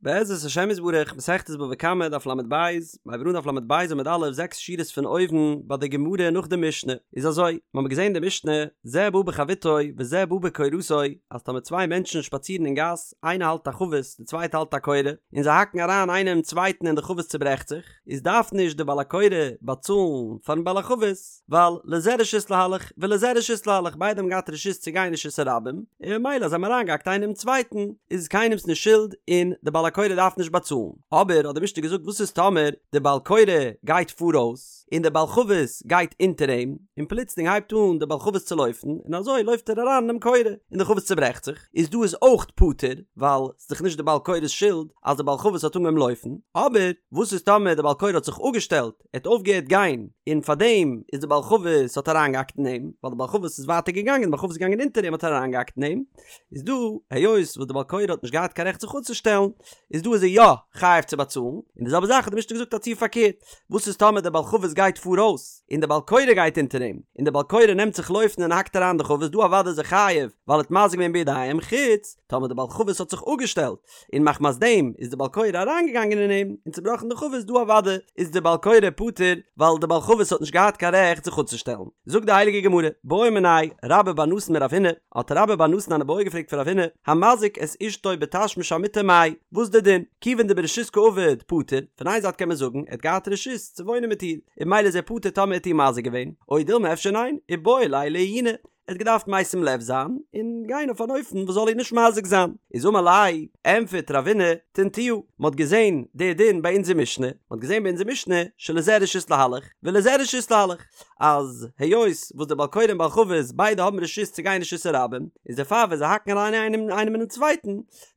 בעזרת השם יתברך, מסכת בבא קמא, דף לב, מ'הייבט אן דף לב עמוד א', זעקס שורות פון אויבן, ביי די גמרא נאך די משנה, איז אזוי, מ'האמיר געזען די משנה, זה בא בחביתו וזה בא בקורתו, אז טאמער צוויי מענטשן שפאצירן אין גאס, איינער האלט א חבית, די צווייטע האלט א קורה, און זיי האקן אריין איינער אינעם צווייטן און די חבית צוברעכט זיך, איז דארף נישט די בעל הקורה באצאלן פארן בעל החבית, ווייל לזה רשות להלך ולזה רשות להלך ביידע האבן געהאט רשות צו גיין רשות הרבים, און ממילא אז זיי האבן אריינגעהאקט איינער אינעם צווייטן איז קיינעמס נישט שולד און די בעל הקורה דארף נישט באצאלן. אבער האט די משנה געזאגט וואס איז טאמער די בעל קורה גייט פאראויס און די בעל חבית גייט אונטער אים, און פלוצלינג הייבט אן די בעל חבית צו לויפן און אזוי לויפט ער אריין אינעם קורה און די חבית צוברעכט זיך, איז דא איז אויך פטור ווייל ס'איז דאך נישט די בעל קורה'ס שולד אז די בעל חבית האט אנגעהויבן לויפן, אבער וואס איז טאמער די בעל קורה האט זיך אפגעשטעלט ער האט אויפגעהערט גיין און פארדעם איז די בעל חבית האט אריינגעהאקט אין אים, ווייל די בעל חבית איז ווייטער געגאנגען, די בעל חבית איז געגאנגען אונטער אים האט ער אריינגעהאקט אין אים, איז דא היות וואס די בעל קורה האט נישט געהאט קיין רעכט זיך אפצושטעלן, איז דא איז ער יא חייב צו באצאלן, און די זעלבע זאך האט די משנה געזאגט א ציור פארקערט, וואס איז טאמער די בעל חבית גייט פאראויס און די בעל קורה גייט אונטער אים, און די בעל קורה נעמט זיך לויפן און האקט אריין די חבית, דא אוודאי איז ער חייב ווייל ער האט מזיק געווען בידיים, חוץ טאמער די בעל חבית האט זיך אפגעשטעלט, און מחמת דעם איז די בעל קורה אריינגעגאנגען אין אים און צובראכן די חבית דא אוודאי איז די בעל קורה פטור ווייל די בעל חבית האט נישט געהאט קיין רעכט זיך אפצושטעלן. זאגט די הייליגע גמרא, בעא מיניה רבה בר נתן מרב הונא, האט רבה בר נתן אן איבעיא געפרעגט פון רב הונא, המזיק את אשתו בתשמיש המיטה מאי, וואס די דין? כיוון דברשות קעביד פטור, פון איין זייט קען מען זאגן ער האט געהאט רשות צו וואוינען מיט איר, און ממילא איז ער פטור טאמער ער האט איר מזיק געווען, או דילמא אפשר ניין, איבעי ליה לעיוני, ער האט געדארפט משים לב זיין און גיין אויף אן אופן וואס זאל איר נישט מזיק זיין. איז אמר ליה, ענטפערט רב הונא, תניתוה, מען האט געזען די דין ביי אונזער משנה, מען האט געזען ביי אונזער משנה שלזה רשות להלך ולזה רשות להלך, אז היות וואס דער בעל קורה און בעל חבית ביידע האבן רשות צו גיין רשות הרבים, איז דערפאר ווען זיי האקן אריין איינעם אינעם צווייטן,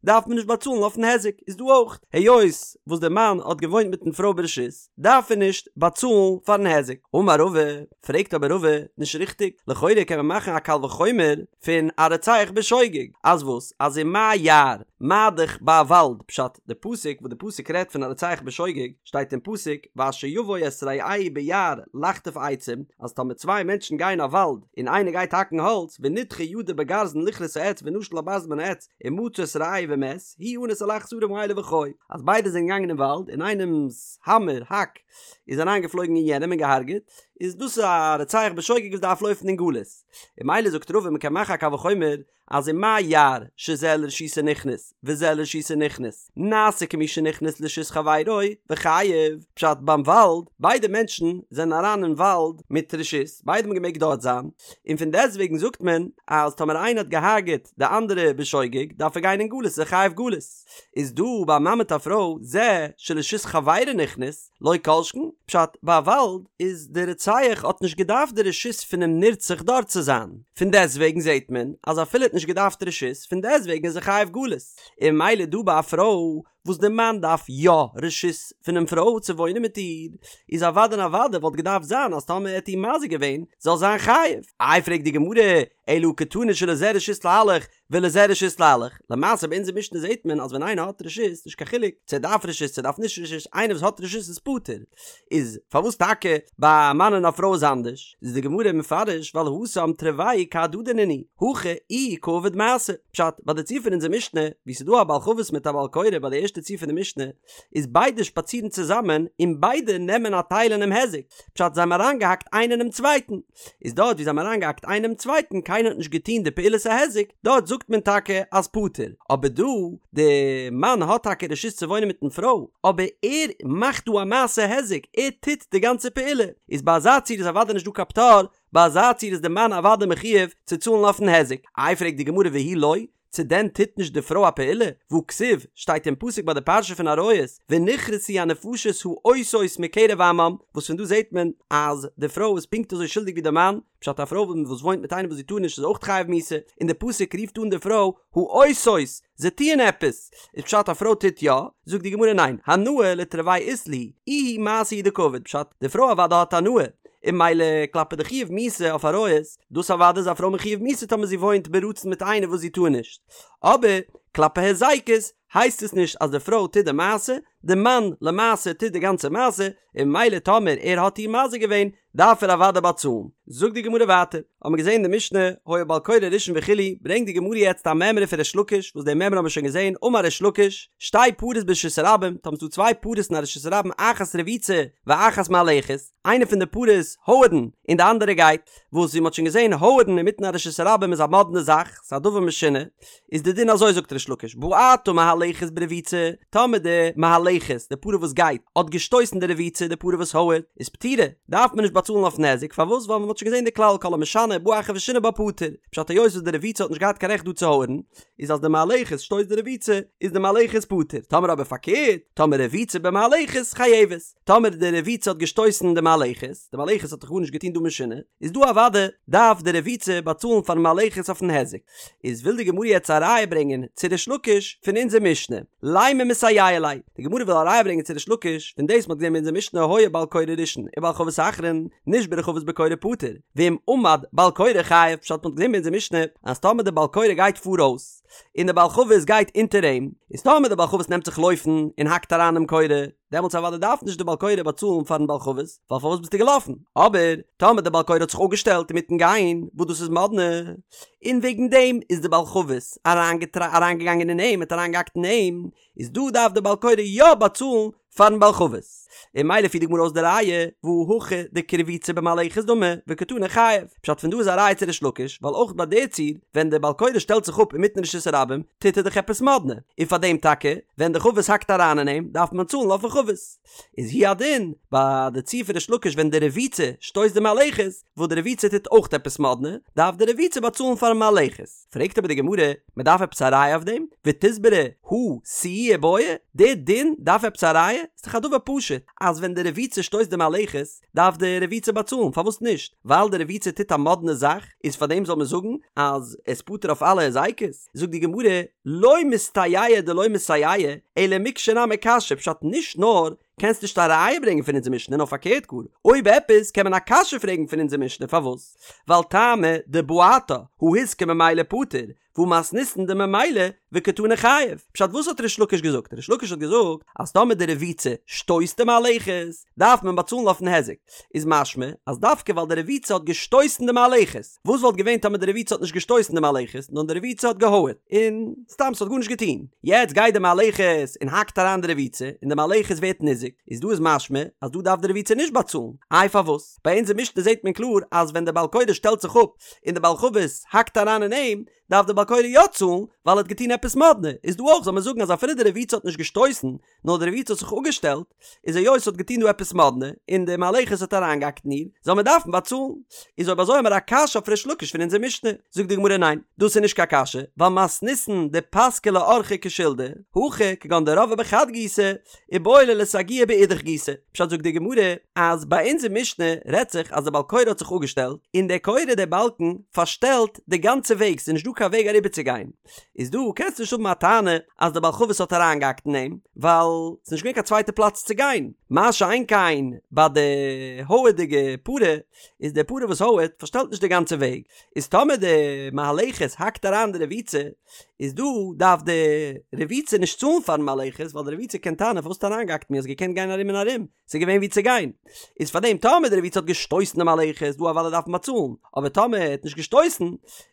דארף מען נישט באצאלן אויפן היזק, איז דא אויך, היות וואס דער מאן האט געוואוינט מיטן פרוי ברשות, דארף ער נישט באצאלן פארן היזק. אמר רבא, פרעגט אבער רבא, נישט ריכטיג, לכאורה קען מען מאכן א קל וחומר פון א רוצח בשוגג, אז וואס? אז ומה יער, מה דאך ביי א וואלד, פשט, די פסוק וואס די פסוק רעדט פון א רוצח בשוגג, שטייט אין פסוק, ואשר יבוא את רעהו ביער לחטוב עצים, אז טאמער צוויי מענטשן גייען אין א וואלד, און איינער גייט האקן האלץ, ונדחה ידו בגרזן לכרות העץ ונשל הברזל מן העץ, ומצא את רעהו ומת, הוא אנוס על אחד השערים האלה וחי, אז ביידע זענען געגאנגען אין וואלד און איינעמס האמער, האק, איז אריין געפלויגן אין יענעם און געהארגעט, איז דאס א רוצח בשוגג וואס דארף לויפן אין גלות. און ממילא זאגט רבא מ'קען מאכן א קל וחומר אז ומה יער שזה לרשותו נכנס וזה לרשותו נכנס נעשה כמי שנכנס לרשות חברו וחייב, פשט ביים וואלד, ביידע מענטשן זענען אריין אין וואלד מיט רשות, ביידע האבן געמעגט דארט זיין, און פון דעסטוועגן זאגט מען אז טאמער איינער האט געהארגעט די אנדערע בשוגג דארף ער גיין אין גלות איז ער חייב גלות. איז דא ביי א מאן מיט א פרוי זה שלרשות חברו נכנס לא כל שכן, פשט ביי א וואלד איז די רוצח האט נישט געדארפט די רשות פונעם נרצח דארט צו זיין, פון דעסטוועגן זעט מען אז אפילו ער האט נישט געדארפט רשות פון דעסטוועגן איז ער חייב גלות, און ממילא דא ביי א פרוי וואס די מאן דארף יא רשות פונעם פרוי צו וואוינען מיט איר, איז אוודאי און אוודאי וואלט געדארפט זיין אז טאמער ער האט איר מזיק געווען זאל זיין חייב. איי פרעגט די גמרא, אלא הא קתני שלזה רשות להלך ולזה רשות להלך, למעשה ביי אונזער משנה זעט מען אז ווען איינער האט רשות, נישט קיין חילוק צו ער דארף רשות צו ער דארף נישט רשות, איינער וואס האט רשות איז פטור, איז פארוואס טאקע ביי א מאן און א פרוי איז אנדערש? איז די גמרא מפרש ווייל התם תרוייהו כהדדי נינהו, הכא איהו קעביד מעשה. פשט, ביי די ציור פון אונזער משנה, וואו ס'איז דא א בעל חבית מיט א בעל קורה ביי די ערשטע ציור פון די משנה, איז ביידע שפאצירן צוזאמען און ביידע נעמען א טייל אינעם היזק, פשט זיי האבן אריינגעהאקט איינער אינעם צווייטן, איז דארט וואו זיי האבן אריינגעהאקט איינער אינעם צווייטן קיינער האט נישט געטון די פעולת ההיזק, דארט זאגט מען טאקע אז פטור, אבער דא, די מאן האט טאקע רשות צו וואוינען מיטן פרוי, אבער ער מאכט דא א מעשה היזק, ער טוט די גאנצע פעולה, איז ביי אזא ציור איז אוודאי נישט דא קיין פטור, ביי אזא ציור איז די מאן אוודאי מחויב צו צאלן אויפן היזק. איי פרעגט די גמרא והוא לא, צו דען טוט נישט די פרוי א פעולה? והא כתיב, שטייט אין פסוק ביי די פרשה פון עריות, ונכרתו הנפשות העושות מקרב עמם, וואס פון דא זעט מען אז די פרוי איז פונקט אזוי שולדיג ווי די מאן, פשט א פרוי וואס וואוינט מיט איינעם וואס זי טאר נישט איז אויך חייב מיתה, און די פסוק רופט אן די פרוי העושות, זיי טוען עפעס, איז פשט א פרוי טוט יא? זאגט די גמרא ניין, הנאה לתרוייהו אית להו, איהו מעשה הוא דקעביד, פשט די פרוי אוודאי האט הנאה, און ממילא כלפי די חיוב מיתה אויף עריות, דאס אוודאי איז א פרוי מחויב מיתה טאמער זי וואוינט ברצון מיט איינער וואס זי טאר נישט, אבער כלפי היזקות הייסט עס נישט אז די פרוי טוט די מעשה, די מאן למעשה טוט די גאנצע מעשה, און ממילא טאמער ער האט איר מזיק געווען דארף ער אוודאי באצאלן. זאגט די גמרא ווייטער, האבן מיר געזען די משנה, היה בעל קורה ראשון וכו', ברענגט די גמרא יעצט א מימרא פון ריש לקיש, וואס די מימרא האבן מיר שוין געזען, אמר ריש לקיש, שתי פרות ברשות הרבים, טאמער ס'דא צוויי פרות אין א רשות הרבים אחת רבוצה ואחת מהלכת, איינע פון די פרות הויערן און די אנדערע גייט, וואס ווי מ'האט שוין געזען הויערן אינמיטן א רשות הרבים איז א מאדנע זאך, ס'איז א דבר משונה, איז די דין אזוי זאגט ריש לקיש בעטה מהלכת ברבוצה, טאמער די מהלכת, די פרה וואס גייט, האט געשטויסן די רבוצה, די פרה וואס הויערט, איז פטורה, דארף מען נישט באצאלן אויף נזק, פארוואס ווייל מען האט שוין געזען די כלל כל המשנה ובא אחר ושינה בה פטור, פשט היות וואס די רבוצה האט נישט געהאט קיין רעכט דא צו הויערן, איז אז די מהלכת שטויסט די רבוצה, איז די מהלכת פטור, טאמער אבער פארקערט, טאמער רבוצה במהלכת חייבת, טאמער די רבוצה האט געשטויסן די מהלכת, די מהלכת האט דאך גארנישט געטון דא משונה, איז דא אוודאי דארף די רבוצה באצאלן פארן מהלכת אויפן היזק. איז וויל די גמרא יעצט א ראיה ברענגען צו ריש לקיש פון אונזער משנה, לימא מסייע ליה, די גמרא וויל א ראיה ברענגען צו ריש לקיש פון דאס מ'האט געזען אין אונזער משנה היה בעל קורה ראשון ובעל חבית אחרון, נשברה חבית בקורה פטור, ואם עמד בעל קורה חייב, פשט מ'האט געזען אין אונזער משנה אז טאמער די בעל קורה גייט פאראויס און די בעל חבית גייט אונטער אים, איז טאמער די בעל חבית נעמט זיך לויפן און האקט אריין אינעם קורה, דעמאלטס אוודאי דארף נישט די בעל קורה באצאלן פארן בעל חבית, ווייל פארוואס ביסטו געלאפן? אבער טאמער די בעל קורה האט זיך אפגעשטעלט אינמיטן גיין, וואס דאס איז מאדנע, און וועגן דעם איז די בעל חבית אריינגעגאנגען אין אים, האט אריינגעהאקט אין אים, איז דא דארף די בעל קורה יא באצאלן פארן בעל חבית. און ממילא פירט די גמרא אויס די ראיה, והא הכא דכרבוצה במהלכת דמי, וקתני חייב. פשט פון דא איז א ראיה צו ריש לקיש, ווייל אויך ביי די ציור, ווען די בעל קורה שטעלט זיך אפ אינמיטן רשות הרבים, טוט ער דאך עפעס מאדנע, און פאר דעם טאקע, ווען די חבית האקט אריין אין אים, דארף מען צאלן אויפן חבית. איז הוא הדין, ביי די ציור פון ריש לקיש ווען די רבוצה שטויסט די מהלכת, וואס די רבוצה טוט אויך עפעס מאדנע, דארף די רבוצה באצאלן פארן מהלכת. פרעגט אבער די גמרא, מען דארף עפעס א ראיה אויף דעם? ותסברא הא סיועי בעי, די דין דארף עפעס א ראיה? ס'איז דאך א דבר פשוט, אז ווען די רבוצה שטויסט די מהלכת, דארף די רבוצה באצאלן, פארוואס נישט? ווייל די רבוצה טוט א מאדנע זאך, איז פאר דעם זאל מען זאגן אז עס פטור אויף אלע היזקות? זאגט די גמרא, לא מסתייעא דלא מסייעא, אלא מקשה נמי קשיא, פשט נישט נאר קענסט נישט א ראיה ברענגען פון אונזער משנה נאר פארקערט גאר, אויב עפעס קען מען א קשיא פרעגן פון אונזער משנה פארוואס? ווייל טעמא דבעטה הא הוזקה ממילא פטור, והא מתניתין דממילא וקתני חייב. פשט וואס האט ריש לקיש געזאגט? ריש לקיש האט געזאגט אז טאמער די רבוצה שטויסט די מהלכת דארף מען באצאלן אויפן היזק. איז משמע אז דווקא ווייל די רבוצה האט געשטויסן די מהלכת. וואס וואלט געווען טאמער די רבוצה האט נישט געשטויסן די מהלכת נאר די רבוצה האט געהויערט און סתם ס'האט גארנישט געטון. יעצט גייט די מהלכת און האקט אריין די רבוצה און די מהלכת ווערט ניזוק. איז דא איז משמע אז דא דארף די רבוצה נישט באצאלן. איי פארוואס? ביי אונזער משנה זעט מען קלאר אז ווען די בעל קורה שטעלט זיך אפ און די בעל חבית האקט אריין אין אים, דארף די בעל קורה יא צאלן, ווייל ער האט געטון עפעס מאדנע, איז דא אויך זאל מען זאגן אז אפילו די רבוצה האט נישט געשטויסן, נאר די רבוצה האט זיך אפגעשטעלט, איז היות ס'האט געטון דא עפעס מאדנע, און די מהלכת האט אריינגעהאקט אין איר, זאל מען דארפן באצאלן. איז אויב אזוי האמיר א קשיא אויף ריש לקיש פון אונזער משנה. זאגט די גמרא ניין, דאס איז נישט קיין קשיא, ווייל מתניתין דפסקה לאורחא כשלדא, הכא כגון דרבעה בחד גיסא, איבעי ליה לסגויי באידך גיסא. פשט זאגט די גמרא אז ביי אונזער משנה רעדט זיך אז די בעל קורה האט זיך אפגעשטעלט און דער קורה דער באלקן פארשטעלט די גאנצע וועג ס'איז נישט דא קיין וועג אריבערצוגיין איז דא קענסטו נישט האבן א טענה אז די בעל חבית האט אריינגעהאקט אין אים ווייל ס'איז נישט געווען קיין צווייטע פלאץ צו גיין מה שאין כן ביי די הויערדיגע פרה איז די פרה וואס הויערט פארשטעלט נישט די גאנצע וועג איז טאמער די מהלכת האקט אריין די רבוצה איז דא דארף די רבוצה נישט צאלן פארן מהלכת ווייל די רבוצה קען טענה'ן פארוואס האסטו אריינגעהאקט מיר האסט געקענט גיין ארום און ארום ס'איז געווען ווי צו גיין איז פארדעם טאמער די רבוצה האט געשטויסן די מהלכת דא אוודאי דארף מען באצאלן אבער טאמער ער האט נישט געשטויסן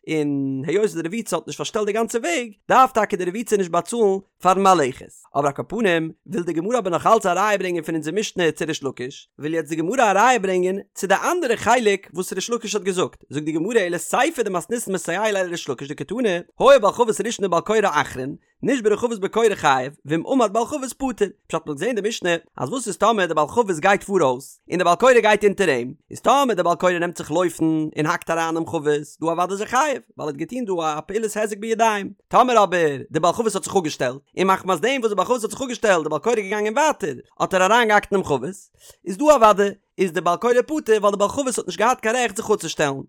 און היות די רבוצה האט נישט פארשטעלט די גאנצע וועג דארף טאקע די רבוצה נישט באצאלן פארן מהלכת. אבער על כל פנים, וויל די גמרא אבער נאך אלץ א ראיה ברענגען פון אונזער משנה צו ריש לקיש, וויל יעצט די גמרא א ראיה ברענגען צו די אנדערע חלק וואס ריש לקיש האט געזאגט, זאגט די גמרא אלא סיפא דמתניתין מסייע ליה לריש לקיש דקתני, היה בעל חבית ראשון ובעל קורה אחרון, נשברה חבית בקורה חייב, ואם עמד בעל חבית פטור. פשט מ'האט געזען אין די משנה אז וואס איז טאמער די בעל חבית גייט פאראויס און די בעל קורה גייט אונטער אים, איז טאמער די בעל קורה נעמט זיך לויפן און האקט אריין אינעם חבית, דא אוודאי איז ער חייב, ווייל ער האט געטון דא א פעולת היזק בידיים. טאמער אבער די בעל חבית האט זיך אפגעשטעלט, און מחמת דעם וואס די בעל חבית האט זיך אפגעשטעלט די בעל קורה געגאנגען ווייטער, האט ער אריינגעהאקט אינעם חבית, איז דא אוודאי איז די בעל קורה פטור ווייל די בעל חבית האט נישט געהאט קיין רעכט זיך אפצושטעלן.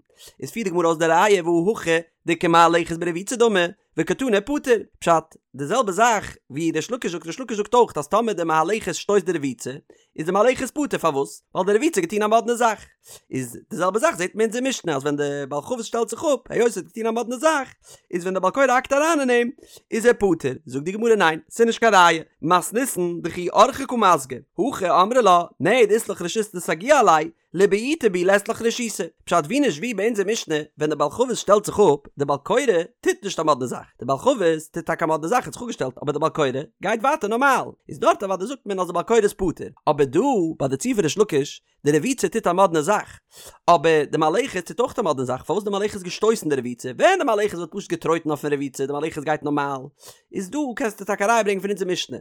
איז פירט די גמרא אויס די ראיה והא הכא דכמהלכת ברבוצה דמי, וקתני פטור. פשט. די זעלבע זאך ווי ריש לקיש זאגט, ריש לקיש זאגט אויך אז טאמער די מהלכת שטויסט די רבוצה, איז די מהלכת פטור, פארוואס? ווייל די רבוצה האט געטון א מאדנע זאך. איז די זעלבע זאך זעט מען אין אונזער משנה אז ווען די בעל חבית שטעלט זיך אפ, היות ער האט געטון א מאדנע זאך, איז ווען די בעל קורה האקט אריין אין אים, איז ער פטור. זאגט די גמרא ניין, ס'איז נישט קיין ראיה, מתניתין דכי אורחיה קא מסגי, הכא אמרה לה, נהי דאית לך רשות לסגויי עלי, לבעוטי בי לית לך רשותא. פשט ווי נישט ווי ביי אונזער משנה, ווען די בעל חבית שטעלט זיך אפ, די בעל קורה טוט נישט א מאדנע זאך, די בעל חבית טוט טאקע א מאדנע זאך האט זיך אפגעשטעלט אבער די בעל קורה גייט ווייטער נארמאל, איז דארט אוודאי זאגט מען אז די בעל קורה איז פטור, אבער דא ביי די ציור פון ריש לקיש, די רבוצה טוט א מאדנע זאך, אבער די מהלכת טוט אויך א מאדנע זאך, פארוואס די מהלכת געשטויסן די רבוצה, ווען די מהלכת וואלט פשוט געטרויטן אויפן רבוצה, די מהלכת גייט נארמאל, איז דא קענסטו טאקע א ראיה ברענגען פון אונזער משנה,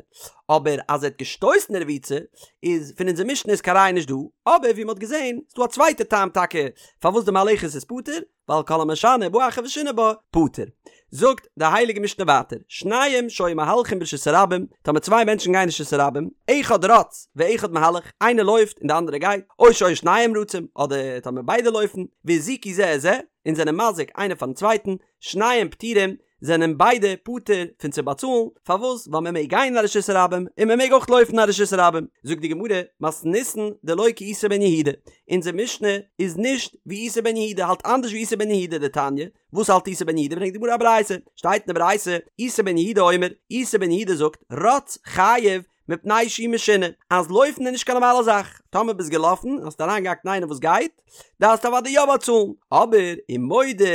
אבער אז ער האט געשטויסן די רבוצה, איז פון אונזער משנה איז קיין ראיה נישט דא, אבער ווי מען האט געזען איז דא א צווייטע טעם טאקע פארוואס די מהלכת איז פטור, ווייל כל המשנה ובא אחר ושינה בה פטור. זאגט די הייליגע משנה ווייטער, שניים שהיו מהלכים ברשות הרבים, טאמער צוויי מענטשן גייען אין רשות הרבים, אחד רץ ואחד מהלך, איינער לויפט און די אנדערע גייט, או שהיו שניהם רצים, אדער טאמער ביידע לויפן, והזיקו זה את זה, און זענען מזיק איינער פארן צווייטן, שניהם פטורים, זענען ביידע פטור פון צו באצאלן, פארוואס? ווייל מען מעג גיין אין א רשות הרבים און מען מעג אויך לויפן אין א רשות הרבים. זאגט די גמרא, מתניתין דלא כאיסי בן יהודה, אונזער משנה איז נישט ווי איסי בן יהודה, האלט אנדערש ווי איסי בן יהודה, דתניא, וואס האלט איסי בן יהודה? ברענגט די גמרא א ברייתא, שטייט אין די ברייתא, איסי בן יהודה אומר, איסי בן יהודה זאגט, רץ חייב מפני שהוא משונה, אז לויפן איז נישט קיין נארמאלע זאך, טאמער ביסט געלאפן און האסט אריינגעהאקט אין איינעם וואס גייט, דארפסטו אוודאי יא באצאלן, אבער ומודה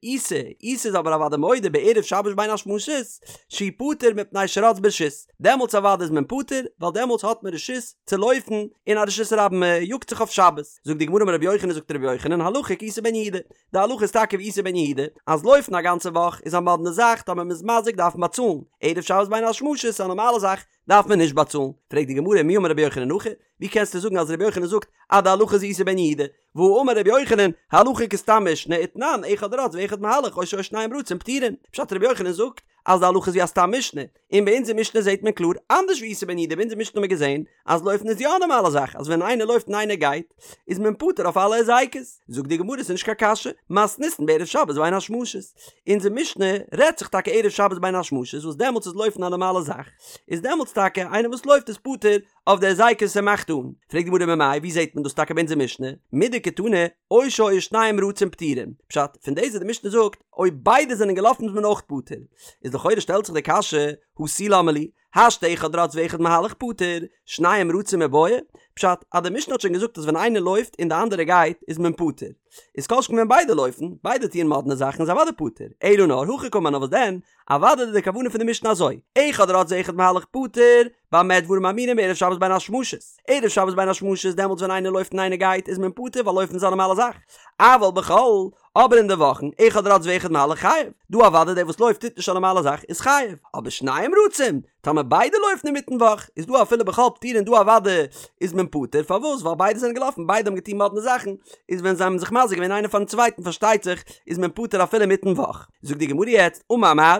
איסי, איסי איז אבער אוודאי מודה בערב שבת בין השמשות, שהוא פטור מפני שרץ ברשות, דעמאלטס אוודאי איז מען פטור, ווייל דעמאלטס האט מען רשות צו לויפן אין א רשות הרבים, מען יאגט זיך אויף שבת. זאגט די גמרא אמר רבי יוחנן זאגט רבי יוחנן הלכה כאיסי בן יהודה, די הלכה איז טאקע ווי איסי בן יהודה, אז לויפן א גאנצע וואך איז א מאדנע זאך, טאמער מ'איז מזיק דארף מען באצאלן, ערב שבת בין השמשות איז א נארמאלע זאך, דארף מען נישט באצאלן. פרעגט די גמרא מי אמר רבי יוחנן הכי, ווי קענסטו זאגן אז רבי יוחנן זאגט אז די הלכה איז איסי בן יהודה, והאמר רבי יוחנן, הלכה כסתם משנה ותנן, אחד רץ ואחד מהלך או שהיו שניהם רצים פטורין, פשט רבי יוחנן זאגט אז די הלכה איז ווי א סתם משנה, און ביי אונזער משנה זעט מען קלאר אנדערש ווי איסי בן יהודה, ביי אונזער משנה האט מען געזען אז לויפן איז יא א נארמאלע זאך, אז ווען איינער לויפט און איינער גייט, איז מען פטור אויף אלע היזקות. זאגט די גמרא ס'איז נישט קיין קשיא, מתניתין בערב שבת בין השמשות. אונזער משנה רעדט זיך טאקע ערב שבת בין השמשות וואס דעמאלטס איז לויפן א נארמאלע זאך, איז דעמאלטס טאקע איינער וואס לויפט איז פטור אויף די היזקות ער מאכט אן. פרעגט די גמרא ממאי ווי זעט מען דאס טאקע ביי אונזער משנה, מדקתני או שהיו שניהם רצים פטורין, פשט, פון דאס וואס די משנה זאגט אויב ביידע זענען געלאפן איז מען אויך פטור, איז לכאורה שטעלט זיך די קשיא, הא תו למה לי, השתא אחד רץ ואחד מהלך פטור, שניהם רצים מיבעיא, פשט, אז די משנה האט שוין געזאגט אז ווען איינער לויפט און די אנדערע גייט איז מען פטור, איז כל שכן ווען ביידע לויפן, ביידע טוען מאדנע זאכן איז אוודאי פטור, אלא נאר הכי קאמר נאר וואס דען, אוודאי איז די כוונה פון די משנה אזוי, אחד רץ ואחד מהלך פטור, במה דברים אמורים בערב שבת בין השמשות, ערב שבת בין השמשות דעמאלטס ווען איינער לויפט און איינער גייט איז מען פטור ווייל לויפן איז א נארמאלע זאך, אבל בחול, אבער אין די וואכן, אחד רץ ואחד מהלך חייב, דא אוודאי דער וואס לויפט טוט נישט א נארמאלע זאך איז חייב, אבער שניהם רצים, טאמער ביידע לויפן אינמיטן וואך, איז דא אפילו בחול פטורין דא אוודאי איז מען פטור, פארוואס? ווייל ביידע זענען געלאפן, ביידע האבן געטון מאדנע זאכן, איז ווען זיי האבן זיך מזיק געווען איינער פארן צווייטן פארשטייט זיך איז מען פטור אפילו אינמיטן וואך. זאגט די גמרא יעצט, אמר מר.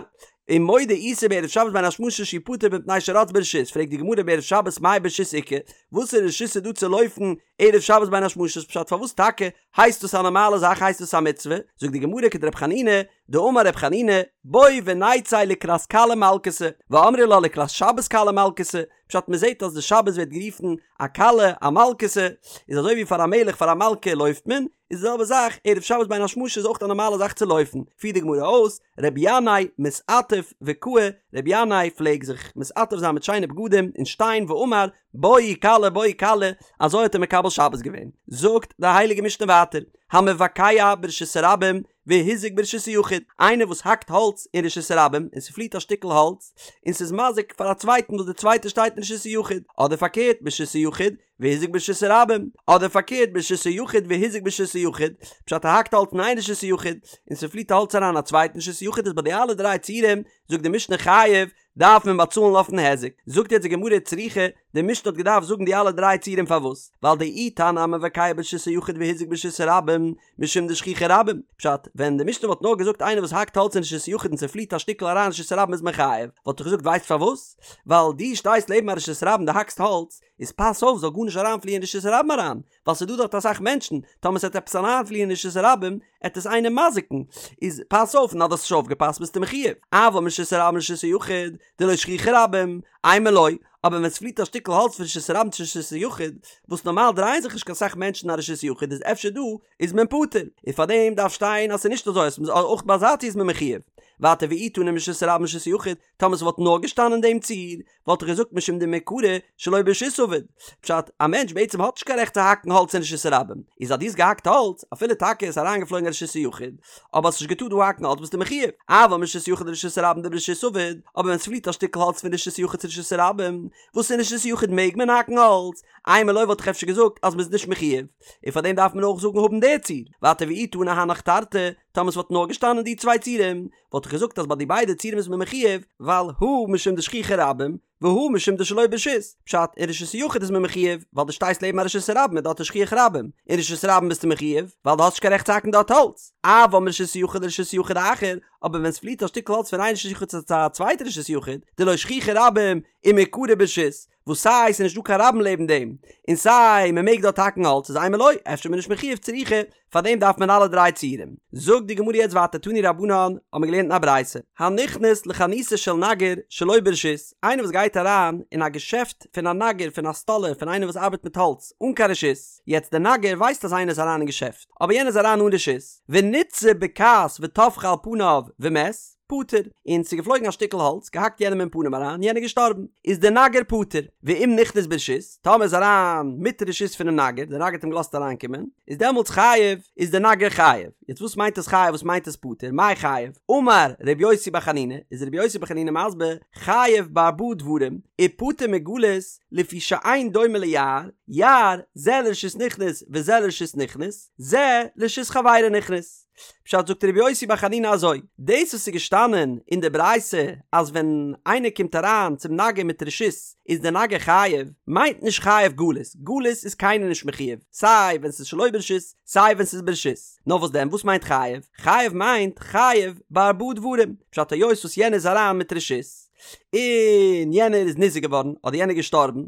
ומודה איסי בערב שבת בין השמשות שהוא פטור מפני שרץ ברשות, פרעגט די גמרא בערב שבת מאי ברשות איכא, וואסערע רשות איז דא צו לויפן ערב שבת בין השמשות, פשט פארוואס טאקע הייסט דאס א נארמאלע זאך הייסט דאס א מצוה, זאגט די גמרא כדרב חנינא, דאמר רב חנינא, בוא ונצא לקראת כלה מלכתא, ואמרי לה לקראת שבת כלה מלכתא, פשט מען זעט אז די שבת ווערט גערופן א כלה א מלכתא, איז אזוי ווי פאר א מלך פאר א מלכה לויפט מען, איז די זעלבע זאך ערב שבת בין השמשות איז אויך א נארמאלע זאך צו לויפן, פירט די גמרא אויס, רבי ינאי מתעטף וקאי, רבי ינאי פלעג זיך מתעטף זיין מיט שיינע בגדים און שטיין ואמר בואי כלה בואי כלה, אזוי האט ער מקבל שבת געווען. זאגט די הייליגע משנה ווייטער, המבקע ברשות הרבים והזיק ברשות היחיד, איינער וואס האקט האלץ אין רשות הרבים און ס'פליט א שטיקל האלץ און ס'איז מזיק פאר א צווייטן וואס דער צווייטער שטייט אין רשות היחיד, אדער פארקערט ברשות היחיד והזיק ברשות הרבים, אדער פארקערט ברשות היחיד והזיק ברשות היחיד, פשט ער האקט האלץ אין איין רשות היחיד און ס'פליט האלץ אריין א צווייטן רשות היחיד איז ביי די אלע דריי ציורים זאגט די משנה חייב דארף מען באצאלן אויפן היזק, זאגט יעצט די גמרא צריכא, די משנה האט געדארפט זאגן די אלע דריי ציורים פארוואס? ווייל דאי תנא המבקע ברשות היחיד והזיק ברשות הרבים משום דשכיחי רבים, פשט, ווען די משנה וואלט נאר געזאגט איינער וואס האקט האלץ אין רשות היחיד און ס'פליט א שטיקל אריין אין רשות הרבים איז מען חייב, וואלט איך געזאגט ווייסט פארוואס? ווייל דו שטייסט לעבן א רשות הרבים דו האקסט האלץ, איז פאס אויף זאל גארנישט אריינפליען אין רשות הרבים אריין, ווייל ס'איז דא דארט אסאך מענטשן, טאמער ס'עט עפעס אריינפליען אין רשות הרבים, עט עס איינעם מזיק'ן, איז פאס אויף, און אז דו האסט נישט אויפגעפאסט ביסטו מחיוב, אבל מרשות הרבים לרשות היחיד, דלא שכיחי רבים, אימא לא, אבער ווען ס'פליט א שטיקל האלץ פון רשות הרבים צו רשות היחיד, וואס נארמאל דרייען זיך נישט קיין סאך מענטשן אין א רשות היחיד איז אפשר דא איז מען פטור, און פארדעם דארף שטיין אז ס'איז נישט אזוי אז אויך ביי אזא ציור איז מען מחויב. ווייטער ואי תנא מרשות הרבים לרשות היחיד, טאמער ס'וואלט נאר געשטאנען דעם ציור, וואלט איך געזאגט משום דמעיקרא שלא ברשות עביד. פשט, א מענטש בעצם האט נישט קיין רעכט צו האקן האלץ אין רשות הרבים, איז אז דו האסט געהאקט האלץ, אפילו טאקע איז אריינגעפלויגן אין רשות היחיד, אבער האסט נישט געטארט דא האקן האלץ ביסטו מחויב, אבל מרשות יחיד לרשות הרבים דברשות עביד, אבער ווען ס'פליט א שטיקל האלץ פון רשות יחיד צו רשות הרבים, וואס אין רשות יחיד מעג מען האקן האלץ, אימא לא וואלט איך אפשר געזאגט אז מ'איז נישט מחויב, און פארדעם דארף מען אויך זאגן האבן די ציור, ווייטער ואי תנא הנך תרתי, טאמער ס'וואלט נאר געשטאנען די צוויי ציורים, וואלט איך געזאגט אז ביי די ביידע ציורים איז מען מחויב, ווייל הא משום דשכיחי רבים, והא משום דשלא ברשות, פשט, אין רשות היחיד איז מען מחויב, ווייל דו שטייסט לעבן א רשות הרבים און דארט איז שכיח רבים, אין רשות הרבים ביסטו מחויב, ווייל דו האסט נישט קיין רעכט צו האקן דארט האלץ, אבל מרשות יחיד לרשות יחיד אחר, אבער ווען ס'פליט א שטיקל האלץ פון איין רשות יחיד צו א צווייטע רשות יחיד, דלא שכיחי רבים, ומעיקרא ברשות, וואס סיי ס'איז נישט דא קיין רבים לעבן דעם, און סיי מ'מעג דארט האקן האלץ איז אימא לא, אפשר איז מען נישט מחויב צריכא, פאר דעם דארף מען אלע דריי ציורים. זאגט די גמרא יעצט ווייטער תנו רבנן, האבן מיר געלערנט אין א ברייתא, הנכנס לחנותו של נגר שלא ברשות, איינער וואס גייט אריין אין א געשעפט פון א נגר פון א סטאלער פון איינער וואס ארבעט מיט האלץ אן קיין רשות, יעצט דער נגר ווייסט אז איינער איז אריין אין געשעפט, אבער יענער איז אריין אן רשות, וניתזה בקעת וטפחה על פניו ומת, פטור, און ס'איז געפלויגן א שטיקל האלץ, געהאקט יענעם אין פנים אריין, יענער געשטארבן, איז דער נגר פטור, ואם נכנס ברשות, טאמער איז אריין מיט רשות פונעם נגר, דער נגר האט אים געלאזט אריינקומען, איז דעמאלטס חייב, איז דער נגר חייב. יעצט וואס מיינט עס חייב וואס מיינט עס פטור, מאי חייב? אמר ר' יוסי בר חנינא, איז ר' יוסי בר חנינא מסביר, חייב בארבעה דברים, ופטור מגלות, לפי שאין דומה ליער, יער, זה לרשות נכנס וזה לרשות נכנס, זה לרשות חברו נכנס. פשט זאגט רבי יוסי בר חנינא אזוי, דאס וואס איז געשטאנען אין די ברייתא אז ווען איינער קומט אריין צום נגר מיט רשות איז די נגר חייב, מיינט נישט חייב גלות, גלות איז קיינער נישט מחויב, סיי ווען ס'איז שלא ברשות סיי ווען ס'איז ברשות, נאר וואס דען וואס מיינט חייב? חייב מיינט חייב בארבעה דברים, פשט היות וואס יענער איז אריין מיט רשות, און יענער איז ניזוק געווארן אדער יענער געשטארבן,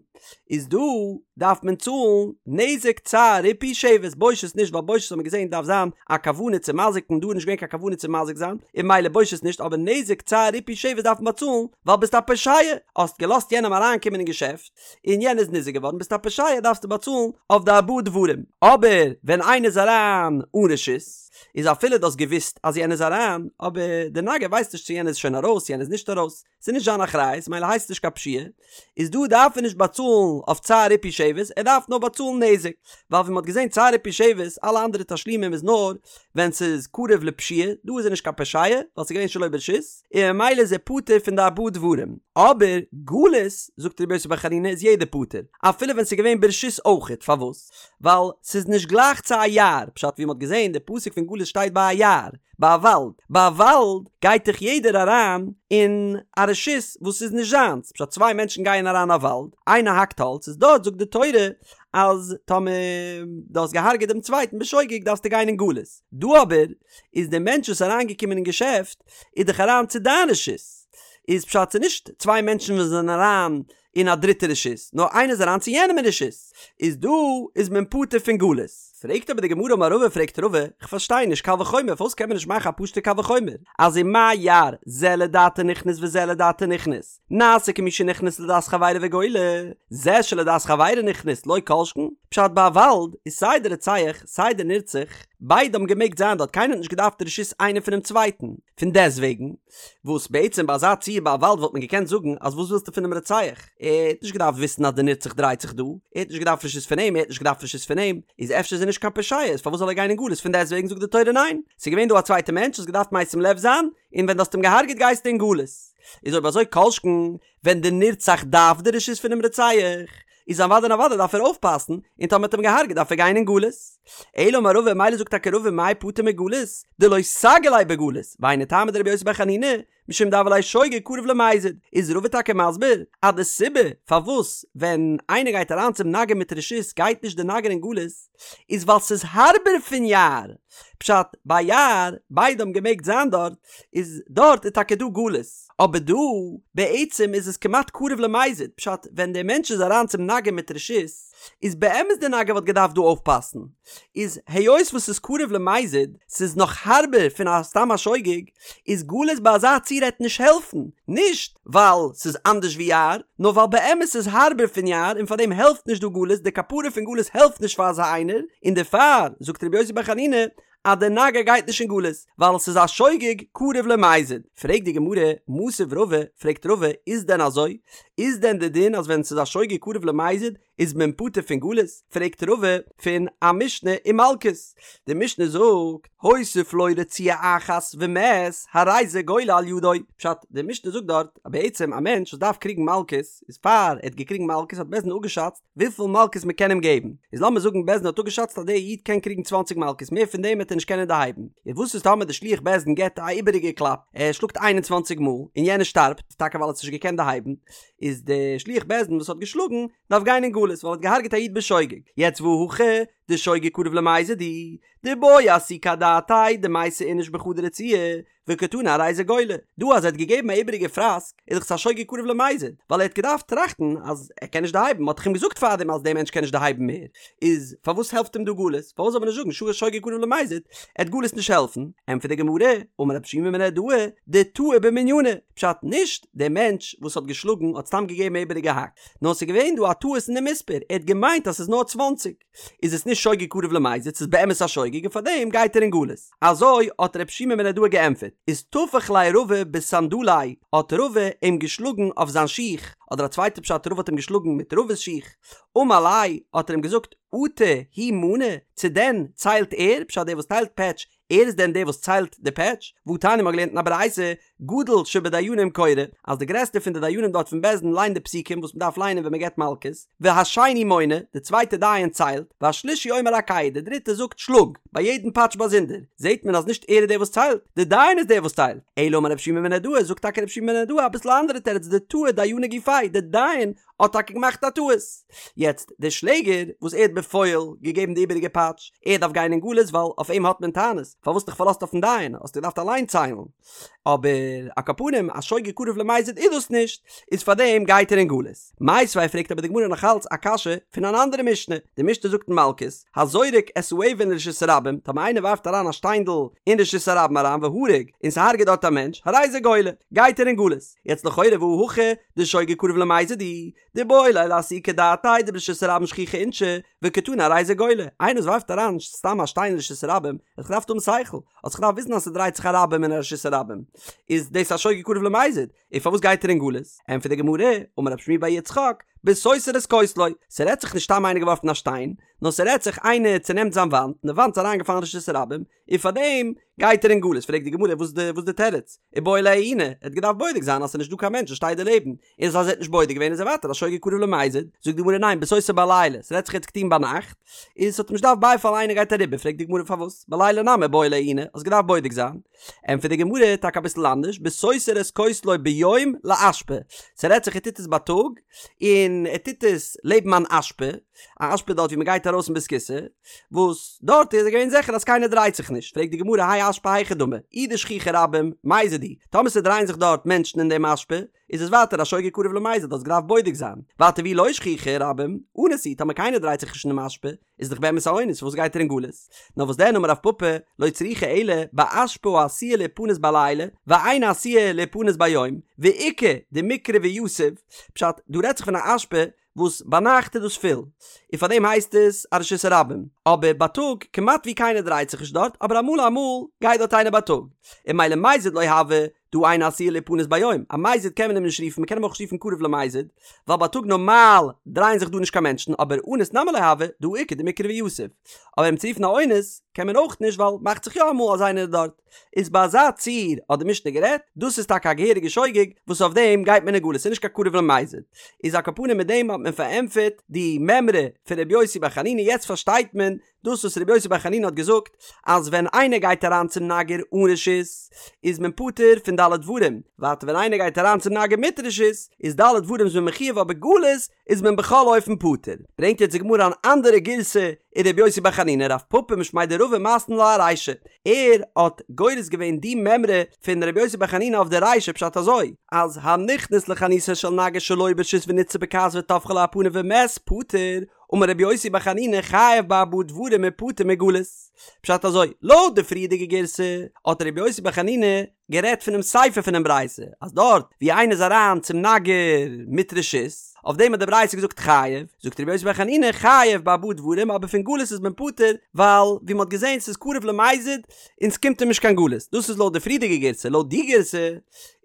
איז דא דארף מען צאלן נזק צער ריפוי שבת, בושת נישט ווייל בושת האט מען געזען דארף זיין א כוונה צו מזיק'ן דא איז נישט געווען קיין כוונה צו מזיק זיין און ממילא בושת נישט אבער נזק צער ריפוי שבת דארף מען באצאלן ווייל ביסט א פושע האסט געלאזט יענעם אריינקומען אין געשעפט און יענער איז ניזוק געווארן ביסט א פושע דארפסטו באצאלן אויף די ארבעה דברים אבער ווען איינער איז אריין אן רשות איז אפילו דו האסט געוואוסט אז יענער איז אריין, אבער דער נגר ווייסט נישט צו יענער איז שוין ארויס יענער איז נישט ארויס, ס'איז נישט זיין אחריות מילא הייסט עס נישט קיין פשיעה, איז דא דארף ער נישט באצאלן אויף צער ריפוי שבת, ער דארף נאר באצאלן נזק, ווייל ווי מ'האט געזען צער ריפוי שבת, אלע אנדערע תשלומים איז נאר ווען ס'איז קרוב לפשיעה, דא איז ער נישט קיין פושע, ווייל ס'איז געווען שלא ברשות, און ממילא איז ער פטור פון די ארבעה דברים, אבער גלות, זאגט רבי יוסי בר חנינא איז יעדער פטור, אפילו ווען ס'איז געווען ברשות אויכעט, פארוואס? ווייל ס'איז נישט גלייך צו א יער, פשט ווי מ'האט געזען די פסוק פון גלות שטייט ביי א יער, ביי א וואלד, ביי א וואלד גייט דאך יעדער אריין אין א רשות וואס איז נישט זיינס, פשט צוויי מענטשן גייען אריין א וואלד, איינער האקט האלץ, איז דארט זאגט די תורה אז טאמער דו האסט געהארגעט דעם צווייטן בשוגג דארפסטו גיין אין גלות, דא אבער איז דער מענטש וואס איז אריינגעקומען אין געשעפט איז דאך אריין צו דיין רשות, איז פשט ס'איז נישט צוויי מענטשן וואס זענען אריין אין א דריטע רשות, נאר איינער איז אריין צו יענעם אין רשות, איז דא איז מען פטור פון גלות. פרעגט אבער די גמרא אמר רבא פרעגט רבא, כ'פארשטיי נישט קל וחומר פארוואס קען מען נישט מאכן א פשוטע קל וחומר אז ומה יער זה לדעתו נכנס וזה לדעתו נכנס נעשה כמי שנכנס לדעת חברו וגולה זה שלדעת חברו נכנס לא כל שכן פשט ביי א וואלד איז סיי די רוצח סיי די נרצח ביידע האבן געמעגט זיין דארט קיינער האט נישט געדארפט רשות איינער פונעם צווייטן פון דעסטוועגן וואס בעצם ביי אזא ציור ביי א וואלד וואלט מען געקענט זאגן אז וואס ווילסטו פונעם רוצח? ער האט נישט געדארפט וויסן אז די נרצח דרייט זיך דא, ער האט נישט געדארפט רשות פון אים, ער האט נישט געדארפט רשות פון אים, איז אפשר איז ער נישט קיין פושע, איז פארוואס זאל ער גיין אין גלות? פון דעסטוועגן זאגט די תורה ניין, ס'איז געווען דא א צווייטע מענטש, האסט געדארפט משים לב זיין, און ווען דו האסט אים געהארגעט גייסטו אין גלות. איז אויב אזוי כל שכן ווען די נרצח דארף די רשות פונעם רוצח, איז אוודאי און אוודאי דארף ער אויפפאסן, און טאמער האט אים געהארגעט דארף ער גיין אין גלות. אלא אמר רבא, מילא זאגט טאקע רבא מאי פטור מגלות, דלא סגי ליה בגלות, והיינו טעמא דרבי יוסי בר חנינא, משום דהוה ליה שוגג קרוב למזיד, איז רבא טאקע מסביר אז די סיבה פארוואס ווען איינער גייט אריין צום נגר מיט רשות גייט נישט די נגר אין גלות, איז ווייל ס'איז הארבער פון יער, פשט, ביי יער, ביידע האבן געמעגט זיין דארט, איז דארט איז טאקע דא גלות, אבער דא, בעצם איז עס כמעט קרוב למזיד, פשט, ווען דער מענטש איז אריין צום נגר מיט רשות, איז באמת דער נגר וואלט געדארפט דא אויפפאסן, איז היות וואס ס'איז קרוב למזיד, ס'איז נאך הארבער פון א סתם א שוגג, איז גלות ביי אזא ציור. רצועה העט נישט העלפן, נישט ווייל ס'איז אנדערש ווי יער, נאר ווייל באמת ס'איז הארבער פון יער און פארדעם העלפט נישט דא גלות, די כפרה פון גלות העלפט נישט פאר אזא איינער, און דערפאר זאגט רבי יוסי בר חנינא אז דער נגר גייט נישט אין גלות, ווייל ס'איז א שוגג קרוב למזיד. פרעגט די גמרא, מתיב רבא, פרעגט רבא, איז דען אזוי? איז דען די דין אז ווען ס'איז א שוגג קרוב למזיד איז מען פטור פון גלות? פרעגט רבא פון א משנה אין מלקות, די משנה זאגט, הוסיף לו רצועה אחת ומת, הרי זה גולה על ידו. פשט, די משנה זאגט דארט אז בעצם א מענטש וואס דארף קריגן מלקות, איז פאר ער האט געקריגן מלקות האט בית דין אפגעשאצט וויפיל מלקות מען קען אים געבן, איז לאמיר זאגן בית דין האט אפגעשאצט אז דער איד קען קריגן צוואנציג מלקות מער פון דעם וועט ער נישט קענען דערהייבן, איז וואס איז טאמער די שליח בית דין געבט א איבעריגע קלאפ, ער שלאגט 21 מאל און יענער שטארבט, טאקע ווייל ער האט עס נישט געקענט דערהייבן, איז די שליח בית דין וואס האט געשלאגן דארף גיין אין גלות ווייל ער האט געהארגעט א איד בשוגג, יעצט והא הכא דשוגג קרוב למזיד הוא, דבעי אסוקי אדעתיה דמייתי איניש בחדא רצועה, וקתני הרי זה גולה, דא אז ער האט געגעבן א איבעריגע פראסק איז דאך עס א שוגג קרוב למזיד, ווייל ער האט געדארפט טראכטן אז ער קען נישט דערהייבן, מ'האט דאך אים געזאגט פארדעם אז דער מענטש קען נישט דערהייבן מער, איז פארוואס העלפט אים דא גלות? פארוואס זאל מען נישט זאגן שו שוגג קרוב למזיד, עט גלות נישט העלפן? ענטפערט די גמרא, אמר רב שימי מנהרדעא, דטעה במנינא, פשט נישט דער מענטש וואס האט געשלאגן האט סתם געגעבן א איבעריגע האק, נאר ס'איז געווען דא א טעות אין די מספר, ער האט געמיינט אז ס'איז נאר צוואנציג. איז עס נישט שוגג קרוב למזיד, ס'איז באמת א שוגג און פארדעם גייט ער אין גלות. אזוי האט רב שימי מנהרדעא געענטפערט. איז טפח ליה רבא בסנדליה, האט רבא אים געשלאגן אויף זיין שיך, אדער א צווייטע פשט רבא האט אים געשלאגן מיט רבא'ס שיך, אמר ליה, האט ער אים געזאגט, אטו הוא מני, צו דען ציילט ער, פשט דער וואס טיילט פעטש, ער איז דען דער וואס ציילט די פעטש? והתניא מ'האט געלערנט אין א ברייתא, גדול שבדיינים קורא, אז די גרעסטע פון די דיינים דארט פון בית דין ליינט די פסוקים וואס מ'דארף ליינען ווען מ'געבט מלקות, והשני מונה, די צווייטע דיין ציילט, והשלישי אומר הכהו, די דריטע זאגט שלאג, ביי יעדן פאטש באזונדער, זעט מען אז נישט ער איז דער וואס ציילט, די דיין איז דער וואס ציילט. אלא אמר רב שימי מנהרדעא, זאגט טאקע רב שימי מנהרדעא אביסל א אנדערע תירוץ, דטעה דיינא גופיה, די דיין האט טאקע געמאכט א טעות. יעצט, דער שלעגער וואס ער האט בפועל געגעבן די איבעריגע פאטש, ער דארף גיין אין גלות ווייל אויף אים האט מען טענות, פארוואס האסט דיך פארלאזט אויפן דיין, האסט געדארפט אליין ציילן. אבער על כל פנים א שוגג קרוב למזיד איז דאס נישט, איז פארדעם גייט ער אין גלות. מיתיבי פרעגט אבער די גמרא נאך אלץ א קשיא פון אן אנדערע משנה, די משנה זאגט אין מלקות, הזורק את האבן לרשות הרבים, טאמער איינער ווארפט אריין א שטיינדל אין רשות הרבים אריין והרג, און ס'הרג'עט דארט א מענטש, הרי זה גולה, גייט ער אין גלות. יעצט לכאורה והא הכא דשוגג קרוב למזיד הוא, דאיבעי ליה לאסוקי דעתיה דברשות הרבים שכיחי אינשי, וקתני הרי זה גולה, איינער וואס ווארפט אריין סתם א שטיין אין רשות הרבים, האט זיך געדארפט האבן שכל, האט זיך געדארפט וויסן אז ס'דרייט זיך א רבים אין א רשות הרבים, איז דאס א שוגג קרוב למזיד, און פארוואס גייט ער אין גלות? ענטפערט די גמרא, אמר רב שמואל בר יצחק, בסותר את כותלו, ס'רעדט זיך נישט סתם איינער געווארפן א שטיין, נאר ס'רעדט זיך איינער צונעמט זיין וואנט, און די וואנט איז אריינגעפאלן אין רשות הרבים, און פארדעם גייט ער אין גלות, פרעגט די גמרא וואס איז די תירוץ? איבעי ליה עיוני, ער האט געדארפט בודק זיין אז ס'איז נישט דא קיין מענטש וואס שטייט דערלעבן, און אז ער האט נישט בודק געווען איז ער ווייטער א שוגג קרוב למזיד, זאגט די גמרא ניין בסותר בלילה, ס'רעדט זיך ער האט עס געטון ביינאכט, און ס'האט אים נישט געדארפט בייפאלן איינער גייט אריבער, פרעגט די גמרא פארוואס בלילה נמי איבעי ליה עיוני, האסט געדארפט בודק זיין, ענטפערט די גמרא טאקע אביסל אנדערש, בסותר את כותלו ביום לאשפה, ס'רעדט זיך ער טוט עס בייטאג, און ער טוט עס לעבן אן אשפה, א אשפה דארט ווי מ'גייט ארויס אין בית הכסא, וואס דארט איז ער געווען זיכער אז קיינער דרייט זיך נישט, פרעגט די גמרא האי אשפה היכי דמי, אי דשכיחי רבים, מזיד הוא, טאמער ס'דרייען זיך דארט מענטשן אין דעם אשפה, איז עס ווייטער א שוגג קרוב למזיד, האסט געדארפט בודק זיין, ווייטער ואי לא שכיחי רבים, אנוס הוא, טאמער קיינער דרייט זיך נישט אין דעם אשפה, איז דאך באמת א אונס, פארוואס גייט ער אין גלות? נאר וואס דען אמר רב פפא, לא צריכא אלא באשפה העשויה להיפנות בלילה, ואינה עשויה להיפנות ביום, ואיכא דמיקרי ויתיב, פשט, דא רעדט זיך פון א אשפה וואס ביינאכט איז דאס פול, און פאר דעם הייסט עס א רשות הרבים, אבער בייטאג כמעט ווי קיינער דרייט זיך נישט דארט, אבער אמאל אמאל גייט דארט איינער בייטאג, און ממילא מזיד לא הוי, דהא אינה עשויה להיפנות ביום, א מזיד קען מען אים נישט רופן, מען קען אים אויך נישט רופן קרוב למזיד, ווייל בייטאג נארמאל דרייען זיך דא נישט קיין מענטשן, אבער אנוס נמי לא הוי, דהא איכא דמיקרי ויתיב, אבער אים צו רופן א אונס קען מען אויך נישט ווייל מאכט זיך יא אמאל אז איינער איז דארט. איז ביי אזא ציור האט די משנה גערעדט, דאס איז טאקע א געהעריגע שוגג וואס אויף דעם גייט מען אין גלות, ס'איז נישט קיין קרוב למזיד. איז על כל פנים מיט דעם האט מען פארענטפערט די מימרא פון ר' יוסי בר חנינא, יעצט פארשטייט מען דאס וואס ר' יוסי בר חנינא האט געזאגט אז ווען איינער גייט אריין צום נגר אן רשות איז מען פטור פון ד' דברים, ווייטער ווען איינער גייט אריין צום נגר מיט רשות איז ד' דברים איז מען מחויב אבער גלות איז מען בכל אופן פטור. ברענגט יעצט די גמרא אן אנדערע גירסא אין רבי יוסי בר חנינא רב פפא משמיה דרבא מתני לה ארישא, ער האט גורס געווען די מימרא פון רבי יוסי בר חנינא אויף די רישא פשט אזוי, אז הנכנס לחנותו של נגר שלא ברשות ונתזה בכעס וטפחה לו על פניו ומת פטור, אמר רבי יוסי בר חנינא חייב בארבעה דברים. דברים ופטור מגלות. פשט אזוי, לויט די פריערדיגע גירסא האט רבי יוסי בר חנינא גערעדט פונעם סיפא פונעם ברייתא אז דארט ווי איינער איז אריין צום נגר מיט רשות, אויף דעם האט די ברייתא געזאגט חייב, זאגט רבי יוסי בר חנינא חייב בארבעה דברים אבער פון גלות איז מען פטור ווייל ווי מ'האט געזען ס'איז קרוב למזיד און ס'קומט אים נישט קיין גלות, דאס איז לויט די פריערדיגע גירסא, לויט די גירסא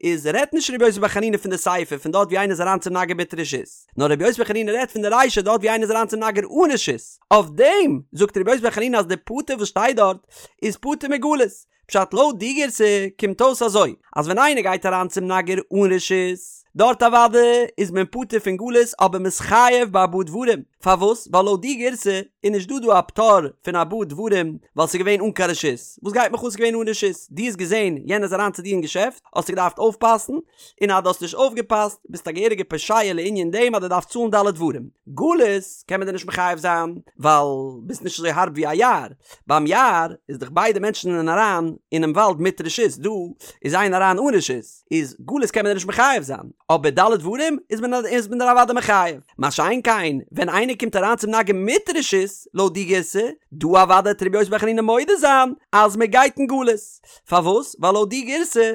איז רעדט נישט רבי יוסי בר חנינא פון די סיפא פון דארט ווי איינער איז אריין צום נגר מיט רשות, נאר רבי יוסי בר חנינא רעדט פון די רישא דארט ווי איינער איז אריין צום נגר אן רשות, אויף דעם זאגט רבי יוסי בר חנינא אז די פטור וואס שטייט דארט איז פטור מגלות, פשט לויט די גירסא קומט אויס אזוי, אז ווען איינער גייט אריין צום נגר אן רשות, דארט אוודאי איז מען פטור פון גלות אבער מ'איז חייב בארבעה דברים, פארוואס? ווייל לויט די גירסא איז נישט דא דא א פטור פון ארבעה דברים ווייל ס'איז געווען אן קיין רשות, וואס גייט מיך אן ס'איז געווען אן רשות? דו האסט געזען יענער איז אריין צו דיר אין געשעפט האסטו געדארפט אויפפאסן, און אז דו האסט נישט אויפגעפאסט ביסטו א געהעריגע פושע לענין דעם אז דו דארפסט צאלן ד' דברים. גלות קען מען דיר נישט מחייב זיין ווייל ביסט נישט אזוי הארב ווי א יער, ביים יער איז דאך ביידע מענטשן זענען אריין אינעם וואלד מיט רשות, דא איז איינער אריין אן רשות, איז גלות קען מען דיר נישט מחייב זיין, אבער ד' דברים איז מען איז מען דיר אוודאי מחייב, מה שאין כן ווען איינער קומט אריין צום נגר מיט רשות, לויט די גירסא, דא אוודאי וועט רבי יוסי בר חנינא מודה זיין אז מען גייט אין גלות, פארוואס? ווייל לויט די גירסא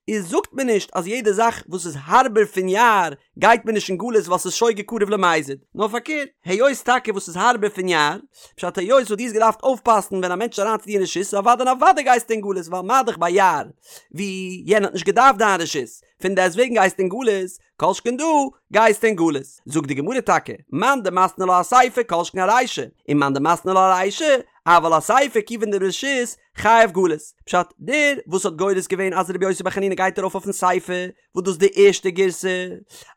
איז זאגט מען נישט אז יעדע זאך וואס איז הארבער פון יער גייט מען נישט אין גלות ווייל ס'איז שוגג קרוב למזיד, נאר פארקערט, היות טאקע וואס איז הארבער פון יער, פשט היות וואס דו האסט געדארפט אויפפאסן ווען א מענטש איז אריין צו דיר אין רשות, אוודאי און אוודאי גייסטו אין גלות ווייל מה דאך ביי יער ווי יענער האט נישט געדארפט דיין רשות, פון דעסט וועגן גייסטו אין גלות, כל שכן דא גייסטו אין גלות. זאגט די גמרא טאקע, מאן דמתני לה אסיפא כל שכן ארישא, און מאן דמתני לה ארישא, אבל אסיפא כיוון דברשות חייב גלות. פשט, דער וואס האט גורס געווען אז רבי יוסי בר חנינא גייט ארויף אויפן סיפא, וואס דאס איז די ערשטע גירסא,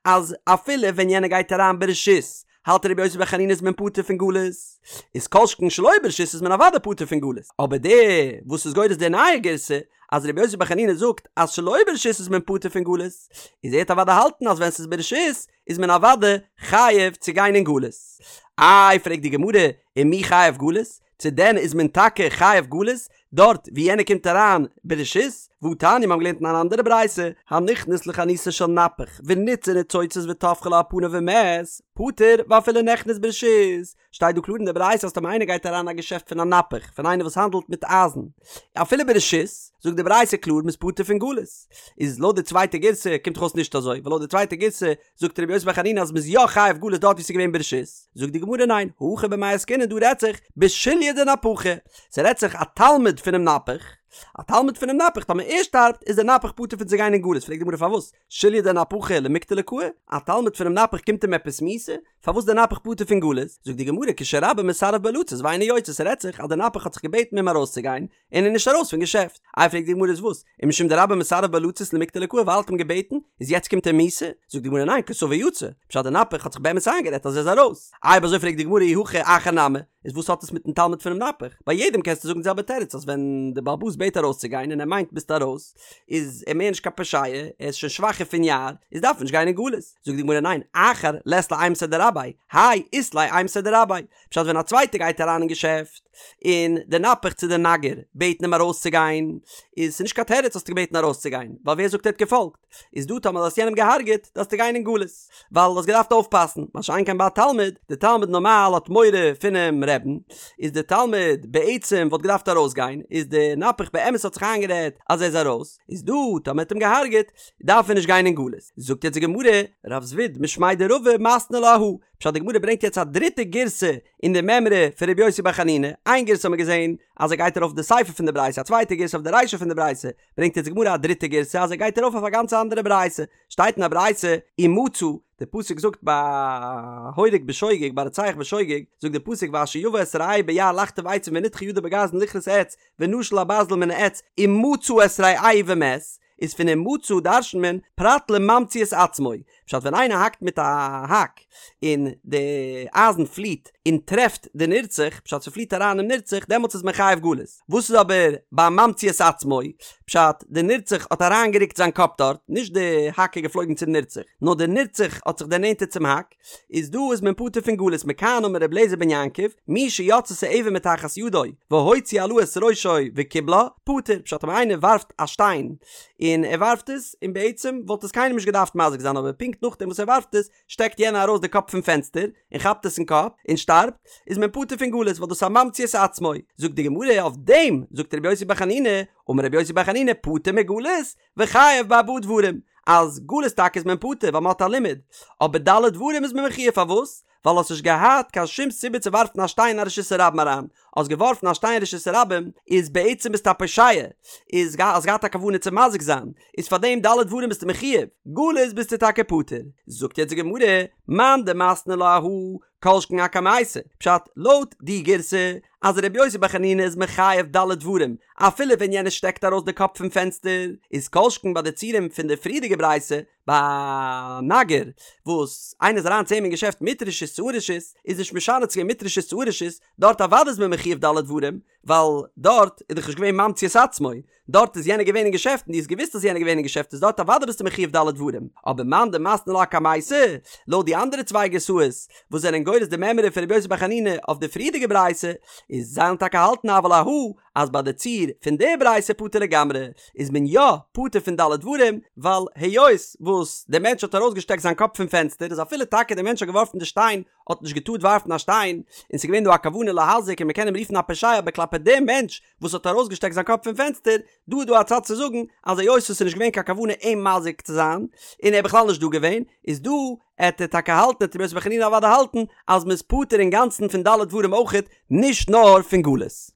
אז אפילו ווען יענער גייט אריין ברשות, האלט רבי יוסי בר חנינא איז מען פטור פון גלות, איז כל שכן שלא ברשות איז מען אוודאי פטור פון גלות, אבער דער וואס איז גורס די נייע גירסא, אז רבי יוסי בר חנינא זאגט אז שלא ברשות איז מען פטור פון גלות, איז ער וועט אוודאי האלטן אז ווען ס'איז ברשות איז מען אוודאי חייב צו גיין אין גלות. איי פרעגט די גמרא, ומי חייב גלות? צו דען איז מען טאקע חייב גלות דארט ווי יענער קומט אריין ברשות? והתניא מיר האבן געלערנט אין אן אנדערע ברייתא, הנכנס לחנותו של נפח וניתצה ניצוצות וטפחה לו על פניו ומת, פטור ואפילו נכנס ברשות, שטייט דא קלאר אין די ברייתא אז טאמער איינער גייט אריין אין א געשעפט פון א נפח, פון איינער וואס האנדלט מיט אייזן, אפילו ברשות, זאגט די ברייתא קלאר מ'איז פטור פון גלות. איז לויט די צווייטע גירסא קומט דאך אויס נישט אזוי, ווייל לויט די צווייטע גירסא זאגט רבי יוסי בר חנינא אז מ'איז יא חייב גלות דארט ווי ס'איז געווען ברשות, זאגט די גמרא ניין, הכא במאי עסקינן דא רעדט זיך בשוליא דנפחא, ס'רעדט זיך א תלמיד פונעם נפח, א תלמיד פונעם נפח טאמער ער שטארבט איז דער נפח פטור פון צו גיין אין גלות, פרעגט די גמרא פארוואס שוליא דנפחא למיקטליה קאי, א תלמיד פונעם נפח קומט אים עפעס מיתה? פארוואס דער נפח פטור פון גלות? זאגט די גמרא כשרבו מסרב בו לצאת ואינו יוצא ס'רעדט זיך אז דער נפח האט זיך געבעטן אים ארויסצוגיין, און ער איז נישט ארויס פון געשעפט. איי פרעגט די גמרא איז וואס? ומשום דרבו מסרב בו לצאת למיקטליה קאי ווייל ער האט אים געבעטן, איז יעצט קומט אים מיתה? זאגט די גמרא ניין כסבור יצא, פשט די נפח האט זיך באמת איינגערעדט אז ער איז ארויס. איי אויב אזוי פרעגט די גמרא אי הכי אחר נמי, איז וואס האט עס מיטן תלמיד פונעם נפח? ביי יעדעם קענסטו זאגן די זעלבע תירוץ אז ווען די בעל הבית בעט ארויסצוגיין און ער מיינט ביסט ארויס איז ער מער נישט קיין פושע, ער איז שוין שוואכער פון יער, איז דארף ער נישט גיין אין גלות. זאגט די גמרא ניין אחר לית ליה אימתיה דרביה, האי אית ליה אימתיה דרביה, פשט ווען א צווייטער גייט אריין אין געשעפט און די נפח צו די נגר בעטן אים ארויסצוגיין איז ס'נישט קיין תירוץ האסטו געבעטן ארויסצוגיין ווייל ווער זאגט ער האט געפאלגט איז דא טאמער האסט יענעם געהארגעט דארפסטו גיין אין גלות ווייל האסט געדארפט אויפפאסן מה שאין כן ביי א תלמיד די תלמיד נארמאל האט מורא פונעם רעבן איז די תלמיד בעצם וואלט געדארפט ארויסגיין איז די נפח באמת האט זיך איינגערעדט אז ער איז ארויס איז דא טאמער האט אים געהארגעט דארף ער נישט גיין אין גלות זאגט יעצט די גמרא רב זביד משמיה דרבא מתני לה אהא פשט די גמרא ברענגט יעצט א דריטע גירסא אין די מימרא פון רבי יוסי בר חנינא, איין גירסא האט מען געזען אז ער גייט ארויף די סיפא פון די ברייתא, א צווייטע גירסא אויף די רישא פון די ברייתא, ברענגט יעצט די גמרא א דריטע גירסא אז ער גייט ארויף אויף א גאנץ אנדערע ברייתא, שטייט אין א ברייתא ומצא, די פסוק זאגט ביי הורג בשוגג ביי רוצח בשוגג, זאגט די פסוק ואשר יבא את רעהו ביער לחטוב עצים ונדחה ידו בגרזן לכרות עץ ונשל הברזל מן העץ ומצא את רעהו ומת, איז פון ומצא דרש'נט מען פרט לממציא את עצמו, פשט ווען איינער האקט מיט א האק און די אייזן פליט און טרעפט די נרצח, פשט ס'פליט אריין אין נרצח, דעמאלטס איז מען חייב גלות. וואס איז אבער ביי ממציא את עצמו, פשט די נרצח האט אריינגערוקט זיין קאפ דארט, נישט די האק איז געפלויגן צום נרצח, נאר די נרצח האט זיך דערנענטערט צום האק, איז דא איז מען פטור פון גלות מכאן אמר רבי אליעזר בן יעקב מי שיצתה אבן מתחת ידו והוציא אלה את ראשו וקיבלה פטור פשט אויב איינער ווארפט א שטיין. און ער ווארפט עס, און בעצם וואלט עס קיינעם נישט געדארפט מזיק זיין אבער פונקט נאכדעם וואס ער ווארפט עס שטעקט יענער ארויס די קאפ פון פענסטער און כאפט עס אין קאפ און שטארבט, איז מען פטור פון גלות ווייל דאס איז א ממציא את עצמו. זאגט די גמרא אויף דעם זאגט רבי יוסי בר חנינא, אמר רבי יוסי בר חנינא פטור מגלות וחייב בארבעה דברים, אז גלות טאקע איז מען פטור ווייל מען האט א לימוד, אבער ד' דברים איז מען מחויב פארוואס? ווייל האסט נישט געהאט קיין שום סיבה צו ווארפן א שטיין אין א רשות הרבים אריין, האסט געווארפן א שטיין אין רשות הרבים איז בעצם ביסטו א פושע, איז האסט געהאט א כוונה צו מזיק זיין, איז פאר דעם ד' דברים ביסטו מחויב, גלות ביסטו טאקע פטור. זאגט יעצט די גמרא, מאן דמתני לה אהא, כל שכן אקמייתא, פשט, לויט די גירסא אז רבי יוסי בר חנינא איז מחייב ד' דברים אפילו ווען יענער שטעקט ארויס די קאפ פון פענסטער, איז כל שכן ביי די ציורים פון די פריערדיגע ברייתא ביי נגר וואס איינער איז אריין צו אים אין געשעפט מיט רשות צו אן רשות, איז נישט משנה צו געווען מיט רשות צו אן רשות, דארט אוודאי איז מען מחויב ד' דברים, ווייל דארט איז דאך נישט געווען ממציא את עצמו, דארט איז יענער געווען אין געשעפט און דו האסט געוואוסט אז יענער איז געווען אין געשעפט איז דארט אוודאי ביסטו מחויב ד' דברים, אבער מאן דמתני לה אקמייתא, לויט די אנדערע צוויי גירסאות וואס זענען גורס די מימרא פון רבי יוסי בר חנינא אויף די פריערדיגע ברייתא, איז זיי וועלן טאקע האלטן אבל אהא אז ביי די ציור פון די ברייתא פטור לגמרי, איז מען יא פטור פון ד' דברים, ווייל היות וואס דער מענטש האט ארויסגעשטעקט זיין קאפ פון פענסטער איז אפילו טאקע דער מענטש האט געווארפן די שטיין האט נישט געטארט ווארפן א שטיין, און ס'איז געווען דא א כוונה להזיק און מ'קען אים רופן א פושע אבער כלפי דעם מענטש וואס האט ארויסגעשטעקט זיין קאפ פון פענסטער, דא איז דא א צד צו זאגן אז היות עס איז נישט געווען קיין כוונה אים מזיק צו זיין, און ער איז בכלל נישט דא געווען, איז דא עט ער טאקע האלטן עט רבי יוסי בר חנינא אוודאי האלטן אז מ'איז פטור אינגאנצן פון ד' דברים אויכעט, נישט נאר פון גלות.